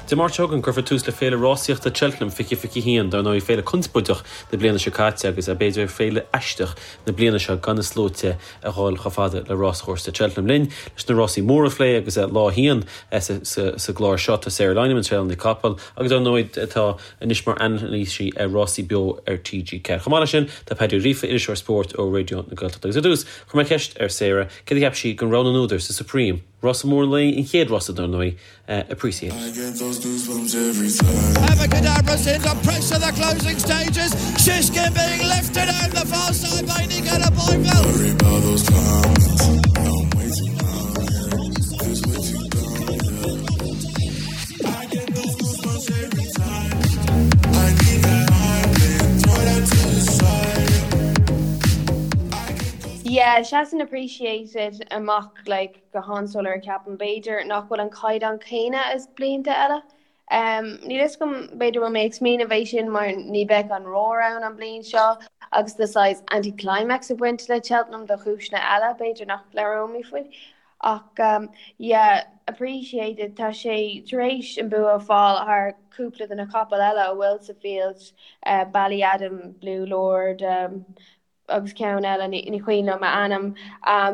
Dé Máirt seo chugainn, cuirfear tús le Féile Rásaíochta Cheltenham 2021, dar ndóigh féile conspóideach na bliana seo caite agus b'fhéidir féile aisteach na bliana seo gan na sluaite a dhul chomh fada le ráschúrsa Cheltenham. Linn leis na rásaí móra a phlé agus lá a haon sa gclár seo tá Sarah Lynam, an traenálaí capall agus dar ndóigh atá anois mar anailísí ar Rásaí Beo ar TG4. Chomh maith leis sin tá Paddy Ó Gríofa, iriseoir spóirt ó Raidió na Gaeltachta. Agus ar dtús, chuir mé ceist ar Sarah céard a cheap sí den rogha na n-údar sa Supreme. Rása mór an lae, an chéad rása dar ndóigh, Appreciate It. Abacadabras into pressure the closing stages Shishkin being lifted out the far side by Nicolas Boyville. Yeah, seasann Appreciate It amach like go han-soiléir ceapaim. B'fhéidir nach bhfuil an caighdeán céanna as blianta eile. Níl fhios agam, b'fhéidir bhfuil mé ag smaoineamh é sin mar ní bheidh an roar ann an bliain seo agus tá saghas anti-climax ag baint le Cheltenham do chúiseanna eile, b'fhéidir nach labhróimid faoi. Ach yeah, Appreciate It, tá sé tar éis an bua a fáil thar cúpla de na capaill eile a bhfuil sa field, Ballyadam, Blue Lord, agus ceann eile, ní cuimhin liom a ainm.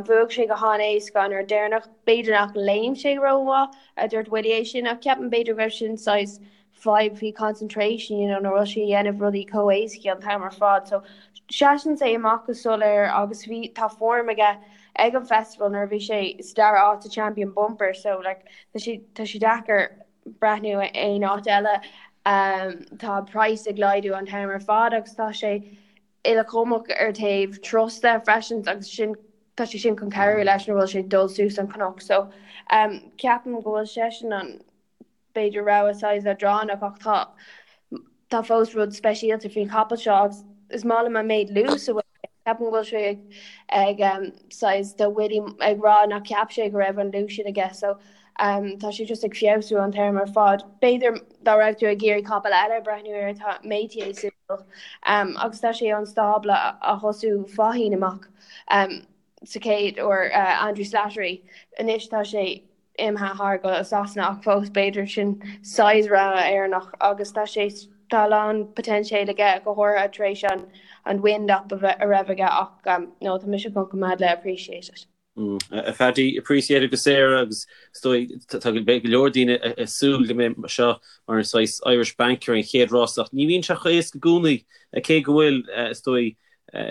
Bhuaigh sé go han-éasca an uair deireanach. B'fhéidir nach léim sé rómhaith, a dúirt Willie é sin, ach ceapaim b'fhéidir go raibh sin saghas fadhb faoi concentration, you know, nach raibh sé ag déanamh rudaí chomh éasca an t-am ar fad. So seasann sé amach go soiléir agus bhí, tá form aige ag an festival nuair a bhí sé sa dara áit sa Champion Bumper, so like tá sé, tá sé deacair breathnú aon áit eile. Tá price ag laghdú an t-am ar fad agus tá sé uilechumach ar taobh trusta freisin agus sin tá sé sin chun cabhrú leis nuair bhfuil sé ag dul suas an cnoc so um, ceapaim go bhfuil seisean an b'fhéidir rogha saghas leadránach ach tá tá fós rud speisialta faoin chapall seo agus is maith liom an méid luas a bhfuil ceapaim go bhfuil sé ag ag um, saghas tá Willie ag rá nach cheap sé go raibh an luas sin aige so Tá sé just ag feabhsú an t-am ar fad. B'fhéidir dá raibh tú ag iarraidh capall eile a breathnú air tá Métier suimiúil agus tá sé ón stábla a thosaigh Faugheen amach sa chéad uair Andrew Slattery. Anois tá sé imithe thar go Sasana ach fós b'fhéidir sin saghas rogha Éireannach agus tá sé tá a lán poitéinseal aige go háirithe tar éis an an wind up a raibh aige ach no tá mise chun coimeád le Appreciate It. A Phaddy, Appreciate It agus Sarah agus is dóigh tá go leor daoine ag súil go mbeidh seo mar an saghas Irish Banker an chéad rás ach ní bhíonn sé chomh éasca i gcónaí cé go bhfuil is dóigh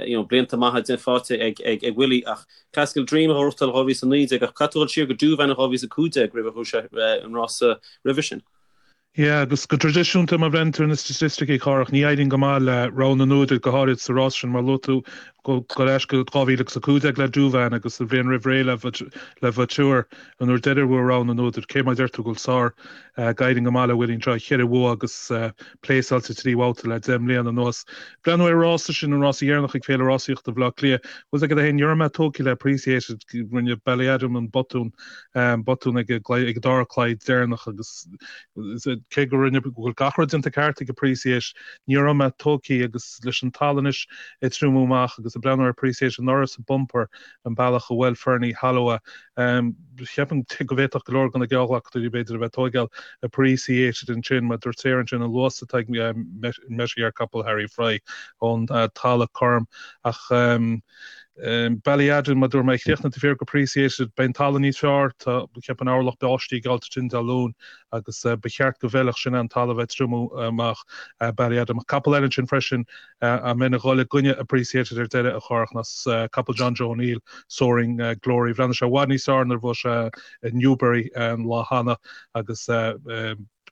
you know blianta maithe déanta faighte ag ag ag Willie ach Klassical Dream a ghnóthachtáil 2019 ach caithfidh tú dul siar go Douvan in 2015 roimh a bhuaigh sé an rása roimhe sin. Yeah, agus go traidisiúnta, má bhreathnaíonn tú ar na staitisticí, Cárthach, ní éiríonn go maith le rogha na n-údar, go háirid sa rás sin, mar luaigh tú, go ar ais go 2015 le Douvan agus an bhliain roimh ré le le Vautour, an uair deiridh a bhuaigh rogha na n-údar, cé mar a deir tú go bhfuil sár ag éirí go maith le Willie anseo, cheithre bhua agus pléasáilte trí bhabhta le 10 mbliana anuas. Breathnú ar an rása sin, an rása dheireanach ag Féile Rásaíochta Bhaile Átha Cliath, bhfuil a fhios agat é féin, ní raibh mé tógtha le Appreciate It, rinne Ballyadam an botún, botún ag ag an dara claí deireanach agus cé go rinne go bhfuil gach rud déanta ceart ag Appreciate, ní raibh mé tógtha agus leis an talamh anois ag triomú amach agus ag breathnú ar Appreciate anuraidh sa bumper an bealach a bhuail Ferny Holloway. Cheapfainn go bhféadfadh go leor de na geallghlacadóirí b'fhéidir a bheith ag tóigeáil Appreciate It ansin mar dúirt Sarah ansin an luas atá ag Metier capall Harry Fry ón talamh cothrom ach Ballyadam, mar dúirt mé, chríochnaigh taobh thiar d'Appreciate It. Beidh an talamh níos fearr, tá, cheapfainn orlach báistí geallta ansin Dé Luain agus ba cheart go bhfeilfeadh sin an talamh ag triomú amach Ballyadam. Capall eile ansin freisin a mbeinn ag dhul i gcoinne Appreciate It ar deireadh a Chárthach ná capall John Joe O'Neill, Soaring Glory. Bhreathnaigh sé i bhfad níos fearr nuair a bhuaigh sé i Newbury an lá cheana agus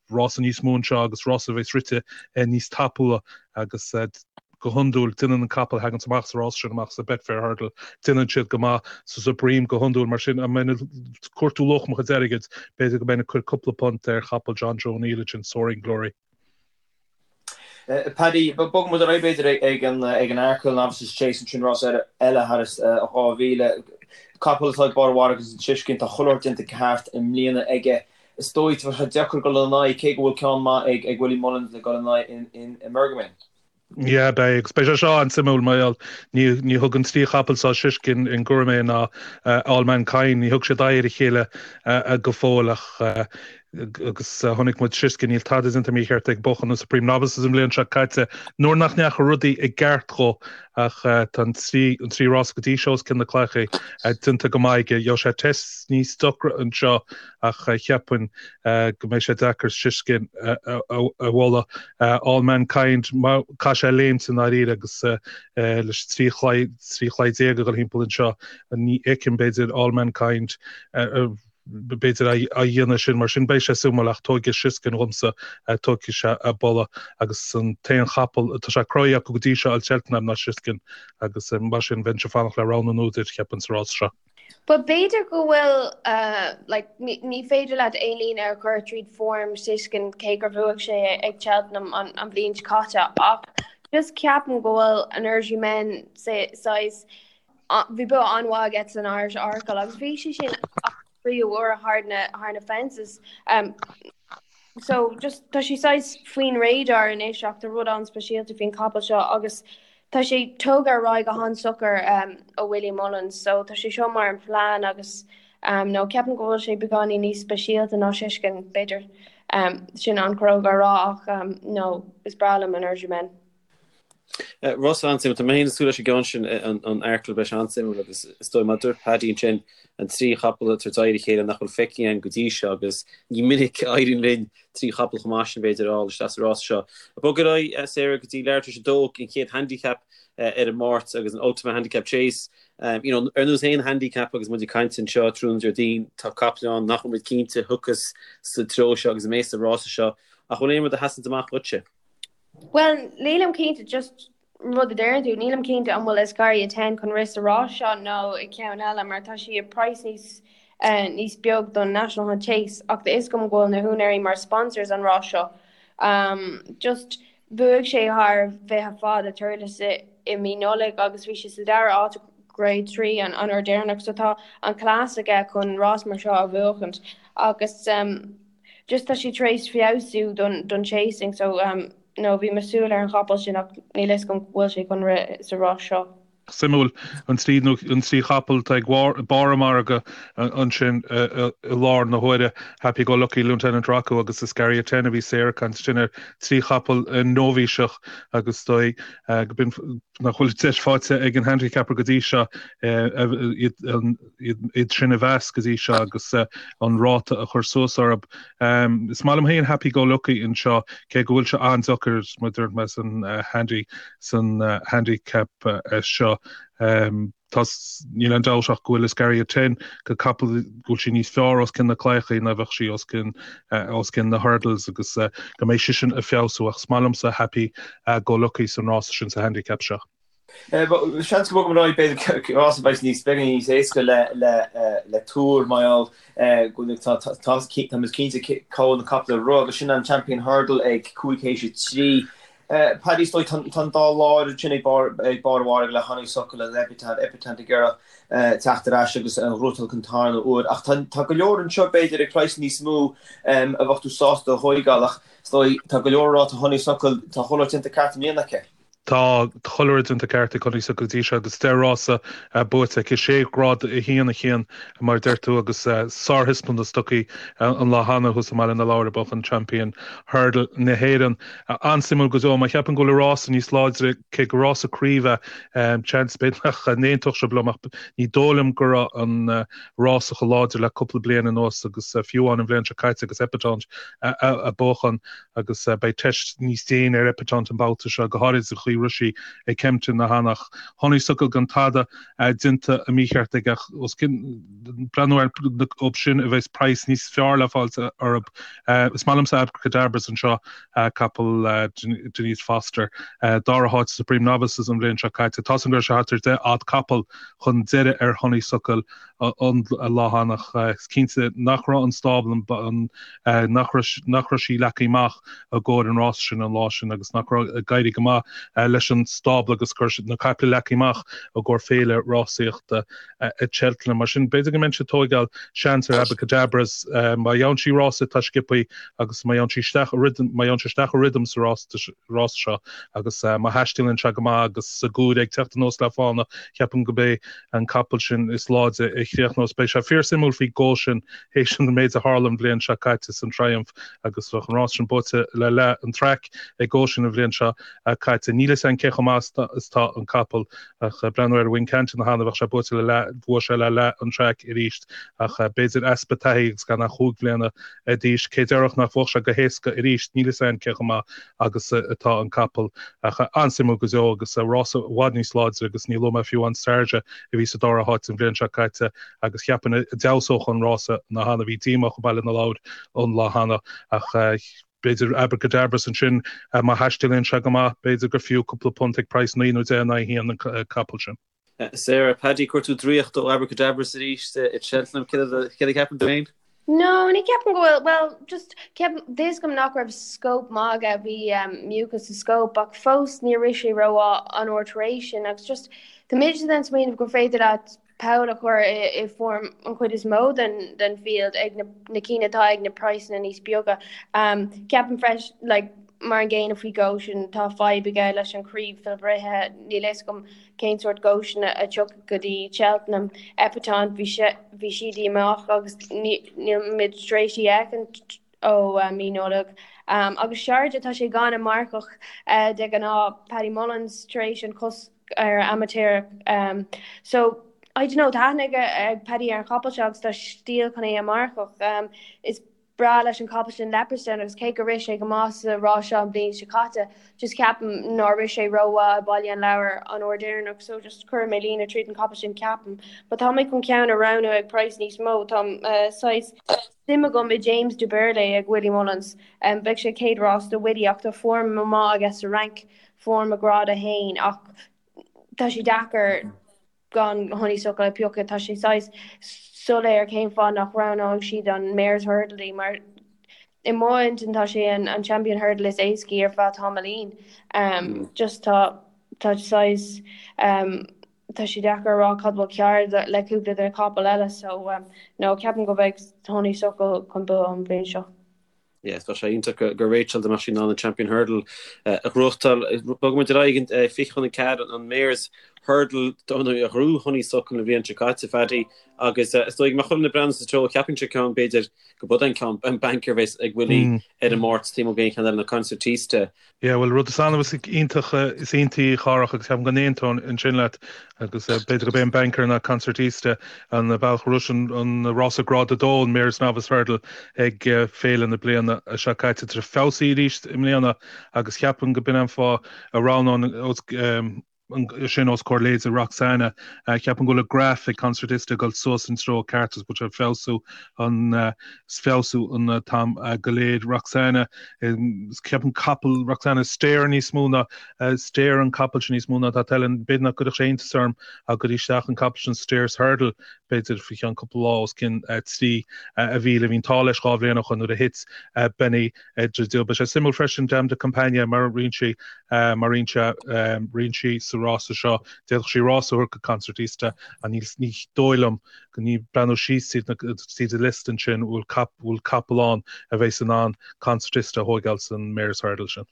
rása níos mó anseo agus rása a bheas rite níos tapúla agus go hiondúil, déanann an capall a thaganns amach sa rás sin amach sa Betfair Hurdle, déanann siad go maith sa Supreme go hiondúil. Mar sin, dá mbeinn ag cuartú luach mo chuid airgid, b'fhéidir go mbeinn ag cur cúpla punt ar chapall John Joe O'Neill ansin, Soaring Glory. Paddy, bogfaidh muid ar aghaidh b'fhéidir ag an ag an Arkle Novices Chase ansin rás eile thar 2000. Capall atá ag barr a mhargaidh ansin Shishkin, tá chuile shórt déanta ceart i mbliana aige. Is dóigh, tá sé deacair dul ina aghaidh, cé go bhfuil ceann maith ag Willie Mullins le dul ina aghaidh in Emergamain. Yeah, beidh, agus beidh sé seo an-suimiúil mar gheall, ní, ní thug an trí chapall seo, Shishkin, Gurmain ná Allmankind, ní thug siad aghaidh ar a chéile go fóill ach. Agus chonaic muid Shishkin, níl tada déanta mícheart ag buachan na Supreme Novices an bhliain seo caite nuair nach ndeachaigh rudaí i gceart dhó ach tá an trí rás go dtí seo os cionn na cloiche déanta go maith aige. Gheobhaidh sé test níos deacra anseo ach cheapfainn go mbeidh sé deacair Shishkin a bhualadh. All Mankind, caithfidh sé léimt i ndáiríre agus leis an 13 chlaí a dhul thimpeall anseo ní fheicim b'fhéidir All Mankind b'fhéidir á dhéanamh sin, mar sin beidh sé suimiúil ach tógfaidh Shishkin dhomsa, tógfaidh sé a boladh agus an t-aon chapall atá sé cruthaithe acu go dtí seo ag Cheltenham ná Shishkin agus mar sin bheinnse ag fanacht le rogha na n-údar, cheapfainn, sa rás seo. But b'fhéidir go bhfuil like ní féidir leat aon líne a chur tríd form Shishkin cé gur bhuaigh sé ag Cheltenham an an bhliain seo caite ach just ceapaim go bhfuil Energumene saghas Bhí bua an-mhaith aige san Irish Arkle agus bhí sé sin tríú huair thar na thar na fences. Um, so just tá sé saghas faoin radar anois ach tá rud an-speisialta faoin capall seo agus tá sé tógtha ar aghaidh go han-socair um, ó Willie Mullins, so tá sé seo mar an plean agus um, nó ceapaim go bhfuil sé beagáinín níos speisialta ná Shishkin, b'fhéidir um, sin an-chróga a rá ach um, nó is breá liom Energumene. Rás an-suimiúil. Tá mé féin ag súil leis an gceann sin, an Arkle, beidh sé an-suimiúil agus is dóigh, mar a dúirt Paddy ansin, an trí chapall ag tabhairt aghaidh ar a chéile nach bhfuil feicthe againn go dtí seo agus ní minic a éiríonn linn trí chapall chomh maith sin, b'fhéidir, a fháil isteach sa rás seo. Bog ar aghaidh, Sarah, go dtí leathuair tar éis a dó, an chéad handicap ar an Máirt agus an Ultima Handicap Chase. You know, ar nós aon handicap agus muid ag caint anseo tráthnóna Déardaoin, tá capaill ann nach bhfuil muid cinnte a thiocfas sa treo seo agus a mbeas sa rása seo. Ach bhfuil aon rud a sheasann amach dhuitse? Bhuel, nílim cinnte, just rud a deireann tú, nílim cinnte an bhfuil Escaria Ten chun rith sa rás seo nó i gceann eile mar tá sí ag praghas níos níos beag don National Hunt Chase ach tá fhios agam go bhfuil na húinéirí mar sponsors an rás seo. Um, just bhuaigh sé thar bhfiche fad i Thurles i, i mí Nollag agus bhí sé sa dara áit Grade 3 an, an uair deireanach so tá an class aige chun rás mar seo a bhuachaint agus um, Just tá sé tar éis feabhsú don don chasing so um no bhí mé súil ar an chapall sin ach níl fhios agam go bhfuil sé chun rith sa rás seo. Suimiúil, an trí nó an trí chapall atá ag barr an mhargaidh ansin i lár na huaire, Happy Go Lucky, Lieutenant Rocco agus Escaria Ten a bhí Sarah ag caint ansin ar trí chapall nóibhíseach agus is dóigh go b'in nach bhfuil deis faighte ag an handicapper go dtí seo iad an iad sin a mheas go dtí seo agus an ráta a chur suas orthu. Is maith liom féin Happy Go Lucky anseo, cé go bhfuil sé an-deacair mar a dúirt mé san handy san handicap seo. Tá níl aon dabht ach go bhfuil Escaria Ten go capall go bhfuil sí níos fearr os cionn na claíochaí ná bheadh sí os cionn os cionn na hurdles agus go mbeidh sí sin ag feabhsú ach is maith liomsa Happy Go Lucky san rása sin sa handicap seo. Seans go mbogfaidh muid ar aghaidh, b'fhéidir, rás a bheidh níos beagáinín níos éasca le tuar mar gheall go bhfuil tá muid cinnte cá bhfuil na capaill ag rith agus sin an Champion Hurdle ag 5 théis 3. Paddy, is dóigh tá an dá láir ansin ag barr an mhargaidh le Honeysuckle agus Epatante, Epatante ag iarraidh teacht ar ais agus an ghnóthachtáil den tarna huair ach tá go leor anseo b'fhéidir ag praghas níos mó a bheadh tú sásta a thóigeáil ach is dóigh tá go leor ag rá tá Honeysuckle tá chuile rud déanta ceart i mbliana aici. Tá chuile rud déanta ceart ag Honeysuckle go dtí seo agus 10 rása buaite aici, sé ghrád 1 a 1 mar a deir tú agus sárthaispeántas tugtha an lá cheana thuas i mBaile na Lobhar ag buachan Champion Hurdle na hÉireann. An-suimiúil go deo. Má cheapann go bhfuil an rása níos láidre, cé gur rása craoibhe é, seans b'fhéidir nach n-aontódh sibh liom ach ní dóigh liom go raibh an rása chomh láidir le cúpla bliain anuas agus fiú amháin an bhliain seo caite agus Epatante ag buachan. agus beidh teist níos déine ar Epatante an babhta seo, go háirid sa chaoi a raibh sí ag Kempton cheana. Honeysuckle gan tada déanta mícheart aige ach os cionn, breathnú ar orthu sin a bheas praghas níos fearr le fáilt orthu. Is maith liomsa Abacadabras anseo, capall Denise Foster, dara háit sa Supreme Novices an bhliain seo caite. Tá a fhios agam go raibh sé thart ar 10 fhad capall chun deiridh ar Honeysuckle an lá cheana ach is cinnte nach raibh an stábla, nach raibh sí leagtha amach i gcomhair an rása sin an lá sin agus nach raibh ag éirí go maith. leis an stábla agus go raibh na caiple leagtha amach i gcomhair féile rásaíochta Cheltenham. Mar sin, b'fhéidir go mbeinnse ag tóigeáil seans ar Abacadabras. Má gheabhann sí rása atá sciobthaí agus má gheabhann sí isteach i rhythm, má gheabhann sé isteach i rhythm sa rása seo agus má thaistealaíonn sé go maith agus Segury ag teacht anuas le fána, ceapaim go b'é an capall sin is láidre a chríochnós. Beidh sé fíorsuimiúil faoi Goshen théis an méid a tharla an bhliain seo caite san Triumph agus bheadh an rás sin buaite le leath an traic ag Goshen an bhliain seo caite. Níl fhios agam cé chomh maith is atá an capall ach breathnú ar Wincanton cheana bheadh sé buaite le leath, bhuaigh sé le leath an traic arís ach b'fhéidir easpa taithí agus gan ach chúig bhliana d'aois. Cé déarfadh nach bhuafadh sé go héasca arís? Níl fhios agam cé chomh maith agus atá an capall ach an-suimiúil go deo agus rása i bhfad níos láidre agus ní luaigh mé fiú amháin Sharjah a bhí sa dara háit an bhliain seo caite agus cheapfainn a d'fheabhsódh an rása ná cheana. Bhí díomách i mBaile na Lobhar an lá cheana ach b'fhéidir Abacadabras ansin má thaistealaíonn sé go maith b'fhéidir gur fiú cúpla punt ag praghas 9 nó 10 in aghaidh 1 an capall sin. Sarah, Paddy, chuir tú draíocht ó Abacadabras arís i Cheltenham. Céard a cheapann tú féin? No, ní ceapaim go bhfuil, well, just, ceapaim, tá fhios agam nach raibh scope maith aige, bhí mucus sa scope, ach fós níor rith sé rómhaith an uair tar éis sin, agus just, tá mise den smaoineamh gur féidir leat poll a chur i form an chuid is mó den den field ag na na cinn atá ag na praghsanna níos beaga. Ceapaim freisin, like, mar an gcéanna faoi Goshen, tá fadhb aige leis an chraobh fhuilbhruithe, níl fhios agam cén sórt Goshen a tiocfaidh go dtí Cheltenham. Epatante, bhí sé, bhí sí díomách agus níl muid tar éis í a fheicint ó mí Nollag. Agus Sharjah, tá sé gan an marcach de ghnáth, Paddy Mullins, tar éis an cosc ar amaitéarach. So, I don't know, tá aithne ag Paddy ar an chapall seo agus tá stíl chun é a mharcach. Is breá leis an chapall sin Leopardstown agus cé gur rith sé go maith sa rás seo an bhliain seo caite, just ceapaim nár rith sé rómhaith i Baile an Lobhair an uair deireanach so just cuirfidh mé líne tríd an chapall sin ceapaim. But tá mé chun ceann a roghnú ag praghas níos mó, tá saghas suim agam i James du Berlais ag Willie Mullins. Beidh sé chéad rás do Willie ach tá form maith aige sa Fhrainc, form i grád 1 ach tá sé deacair gan Honeysuckle a phiocadh. Tá sé saghas soiléir cén fáth nach roghnóidh siad an Mares Hurdle di mar i mo intinn tá sé an Champion Hurdle is éascaí ar feadh tamaillín. Just tá tá saghas tá sé deacair a rá cad bhfuil cearr le cúpla de na capaill eile so no ceapaim go mbeidh Honeysuckle chun bua an bhliain seo. Yes, bheadh sé iontach do Rachel dá mbeadh sí in ann an Champion Hurdle a ghnóthachtáil. Bogfaidh muid ar aghaidh 20 chun 4 an Mares Hurdle a ghnóthaigh Honeysuckle an bhliain seo caite, Phaddy, agus is dóigh go mbeadh chuile dhuine ag breathnú sa treo, cheapfainnse ceann b'fhéidir go b'é an ceann, an banker a bheas ag Willie ar an Máirt taobh amuigh d'aon cheann eile ná Concertista. Yeah, bhuel, rud is annamh is iontach is iontaí, a Chárthach, agus ceapaim go n-aontóinn ansin leat, agus b'fhéidir gurb é an banker ná Concertista an bealach a raibh an rása Grád 2, an Mares Novice Hurdle, ag féile na bliana seo caite. Tá sé feabhsaithe arís i mbliana agus cheapfainn go b'in an fáth a roghnóinn sin os comhair leithéide Roxana. Ceapaim go bhfuil an graf ag Concertista ag dul suas an treo ceart agus go bhfuil sé ag feabhsú an feabhsú an t-am go léir. Roxana, ceapaim capall Roxana stayer níos mó ná stayer an capall sin níos mó ná tá tallann. B'fhéidir nach gcuirfeadh sé iontas orm dá gcuirfí isteach an capall sin Stayers Hurdle b'fhéidir faoi cheann cúpla lá os cionn 3,000. Bhí an t-ádh leis dhá bhliain ó shoin nuair a thit Benny Dreadil. Beidh sé suimiúil freisin Dame de Compagnie mar a ritheann sí mar ritheann sé ritheann sí sa rása seo. D'fhéadfadh sí rás a thabhairt go Concertista ach ní ní dóigh liom go ní breathnú síos tríd na tríd an liosta ansin bhfuil cap bhfuil capall ann a bheas in ann Concertista a thóigeáil san Mares Hurdle sin.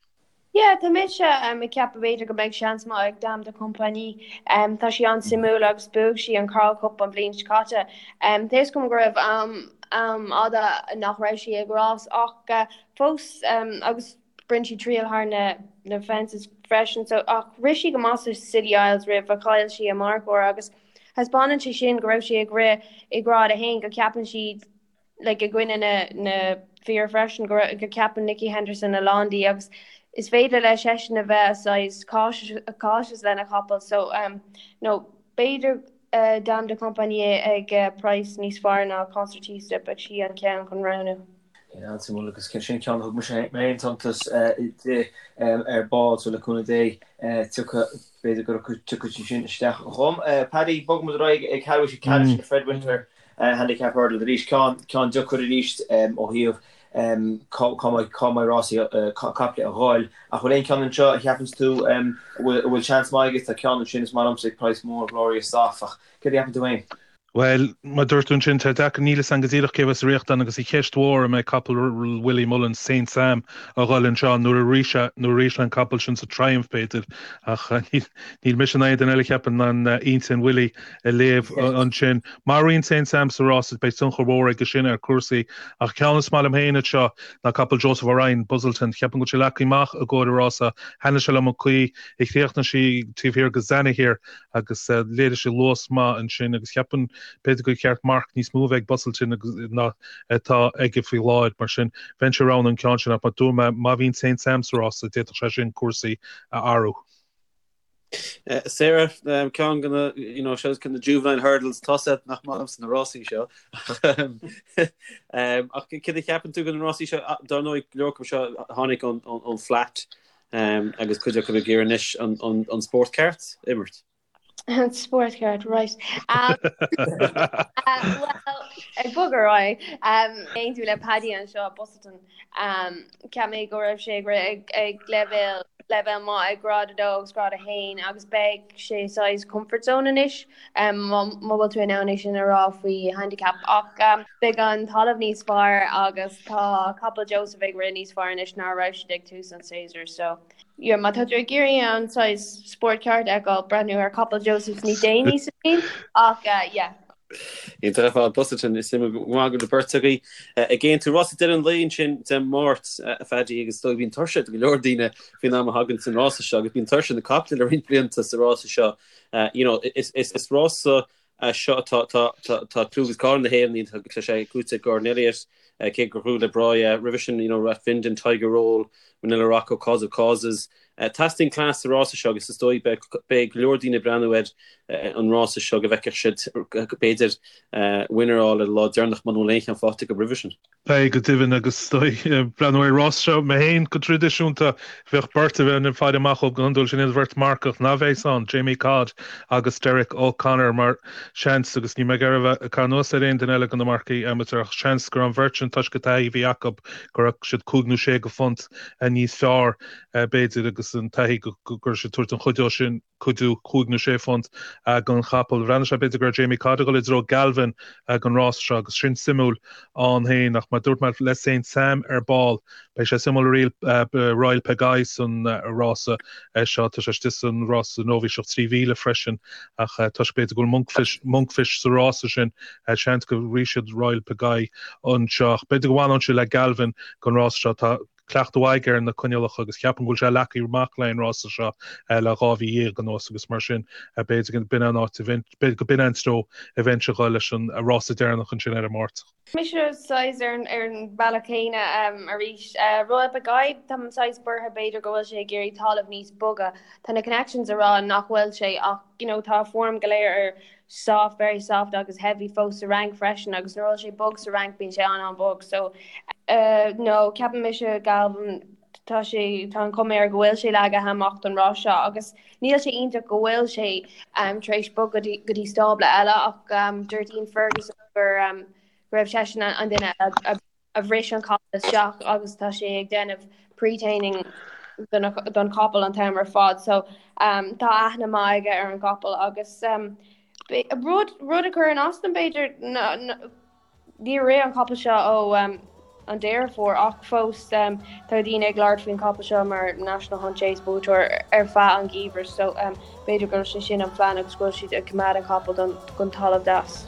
Yeah, tá mise ag ceapadh b'fhéidir go mbeidh seans maith ag Dame de Compagnie. Tá sí an-suimiúil agus bhuaigh sí an Coral Cup an bhliain seo caite. Tá fhios agam go raibh am fhada nach raibh sí ag rás ach fós agus rinne sí triail thar na na fences freisin so ach rith sí go maith sa Scilly Isles roimh a chaill sí a marcóir agus thaispeánann sé sin go raibh sí ag rith i grád a haon go ceapann siad like i gcoinne na na fir freisin go go ceapann Nicky Henderson a lán di agus is féidir leis seisean a bheith saghas cautious cautious lena chapall so um no b'fhéidir uh, Dame de Compagnie ag uh, price níos fearr ná Concertista beidh sí an ceann chun roghnú. An-suimiúil agus sin ceann a thug mise mé féin suntas di ar ball so le cúnamh Dé tiocfaidh b'fhéidir go dtiocfaidh sí sin isteach dhom. Paddy, bogfaidh muid ar aghaidh ag ceathrú tar éis an Fred Winter Handicap Hurdle arís, ceann deacair arís ó thaobh. Cá mbeidh rásaí caiple a dhul. Ach bhfuil aon cheann anseo a cheapanns tú a bhfuil seans maith aige? Tá ceann ansin is maith liomsa ag praghas mór, Glorious Soft, ach céard a cheapann tú féin? Bhuel, mar a dúirt tú ansin, tá deacair, níl 'fhios a'm go díreach cé bheas sa riocht ann agus an cheist mhór an mbeidh capall Willie Mullins, Saint Sam, a dhul anseo nuair a rith sé, nuair a rith sé an capall sin sa Triumph b'fhéidir ach níl mise ná aon duine eile cheapfainn in ann intinn Willie a léamh ansin. Má ritheann Saint Sam sa rás beidh tionchar mhór aige sin ar chúrsaí ach ceann is maith liom féin anseo ná capall Joseph O'Ryan, Busselton. Cheapfainn go bhfuil sé leagtha amach i gcomhair an rása. Thaitnigh sé liom an chaoi a chríochnaigh sí taobh thiar de Zanahiyr agus léirigh sé luas maith ansin agus cheapfainn b'fhéidir gur cheart marc níos mó a bheith ag Busselton ná atá aige faoi láthair. Mar sin, bheinnse ag roghnú an ceann sin ach mar a dúirt mé, má bhíonn Saint Sam sa rása, d'fhéadfadh sé sin cúrsaí a athrú. Sarah, ceann de na, you know, seo na juvenile hurdles, tá sé nach maith liomsa na rásaí seo. Ach céard a cheapann tú de na rásaí seo? Dar ndóigh, go leor acu seo tháinig ón flat. Agus cuid acu ag iarraidh anois an spórt ceart a imirt. An spórt ceart, right. Well, ag bogadh ar aghaidh, aontú le Paddy anseo, Busselton. Cheap mé go raibh sé ag rith ag leibhéal leibhéal maith ag grád 2 agus grád 1 agus beidh sé saghas comfort zone anois má bhfuil tú in ann é sin a rá faoi handicap. Ach beidh an talamh níos fearr agus tá capall Joseph ag rith níos fearr anois ná a raibh siad ag tús an séasúir so yeah má tá tú ag iarraidh an saghas spórt ceart a fheiceáil, breathnú ar capall Joseph níos déanaí sa bhliain ach yeah. Iontach ar fad, Busselton, is suimiúil go maith go bhfuil beirt agaibh ag aontú. Rása deireadh an lae ansin Dé Máirt, a Phaddy, agus is dóigh bíonn tuirse do go leor daoine faoin am a thagann san rása seo agus bíonn tuirse na caiple le roinnt blianta sa rása seo. You know, is rása é seo atá tá clú agus cáil na hÉireann, tá sé buaite ag Gordon Elliott, cé gur ghnóthaigh Le Breuil é roimhe sin, you know, Rathvinden, Tiger Roll, Manila Rocco, Cause of Causes. Teastaíonn cleas sa rása seo agus is dóigh beidh go leor daoine ag breathnú ar an rása seo go bhfeicfeadh siad b'fhéidir winner a fháil ar an lá deireanach muna bhfuil aon cheann faighte acu roimhe sin. Beidh, go deimhin, agus is dóigh, breathnú ar an rás seo mé féin go traidisiúnta, bheadh beirt a bheinn ag faire amach dóibh go hiondúil, sin iad an bheirt marcach ná bheas ann, Jamie Codd agus Derek O'Connor, mar seans, agus níl mé ag iarraidh a bheith ag caitheamh anuas ar aon duine eile de na marcaigh amateur, ach seans gur an bheirt sin, toisc an taithí a bhí acu, go raibh siad cúig nó sé de phunt níos fearr, b'fhéidir, agus an taithí go raibh siad ag tabhairt an chuidiú sin. cuidiú cúig nó sé phunt don chapall. Bhreathnaigh sé b'fhéidir go raibh Jamie Codd ag dul i dtreo Galvin don rás seo agus sin suimiúil ann féin ach mar dúirt mé le Saint Sam ar ball beidh sé suimiúil Royale Pagaille san rása seo. Tá sé istigh san rása nóibhíseach 3000 freisin ach toisc b'fhéidir go bhfuil Monkfish, Monkfish sa rása sin seans go rithfidh siad Royale Pagaille anseo ach b'fhéidir go bhfanfadh sé le Galvin don rás seo. Tá cleachtadh mhaith aige ar na coinníollacha agus ceapaim go bhfuil sé leagtha amach le an rása seo le 2 mhí dhéag anuas agus mar sin b'fhéidir go b'in an áit a bheinn, b'fhéidir go b'in an treo a bheinnse ag dul leis an rása deireanach ansin ar an Máirt. Mise saghas ar an ar an bhealach céanna arís. Royale Pagaille, táim saghas buartha b'fhéidir go bhfuil sé ag iarraidh talamh níos boga. Tá na connections ag rá nach bhfuil sé ach you know tá a form go léir ar soft, very soft agus heavy fós sa Fhrainc freisin agus nuair a bhfuil sé bog sa Fhrainc bíonn sé an-an-bhog so no ceapann mise Galvin tá sé tá an chuma air go bhfuil sé leagtha amach don rás seo agus níl sé iontach go bhfuil sé um, tar éis bogadh go dtí go dtí stábla eile ach um, dúirt Ian Ferguson gur um, go raibh seisean an duine a, a a bhris an capall isteach agus tá sé ag déanamh pre-training don chapall an t-am ar fad so um, tá aithne maith aige ar an gcapall agus um, rud, rud a chuireann as dom b'fhéidir níor rith an capall seo ó um, an Deireadh Fómhair ach fós um, tá daoine ag labhairt faoin chapall seo mar National Hunt Chase buaiteoir ar feadh an gheimhridh so um, b'fhéidir go bhfuil sé sin an phlean agus go bhfuil siad ag coimeád an capall don, don talamh deas.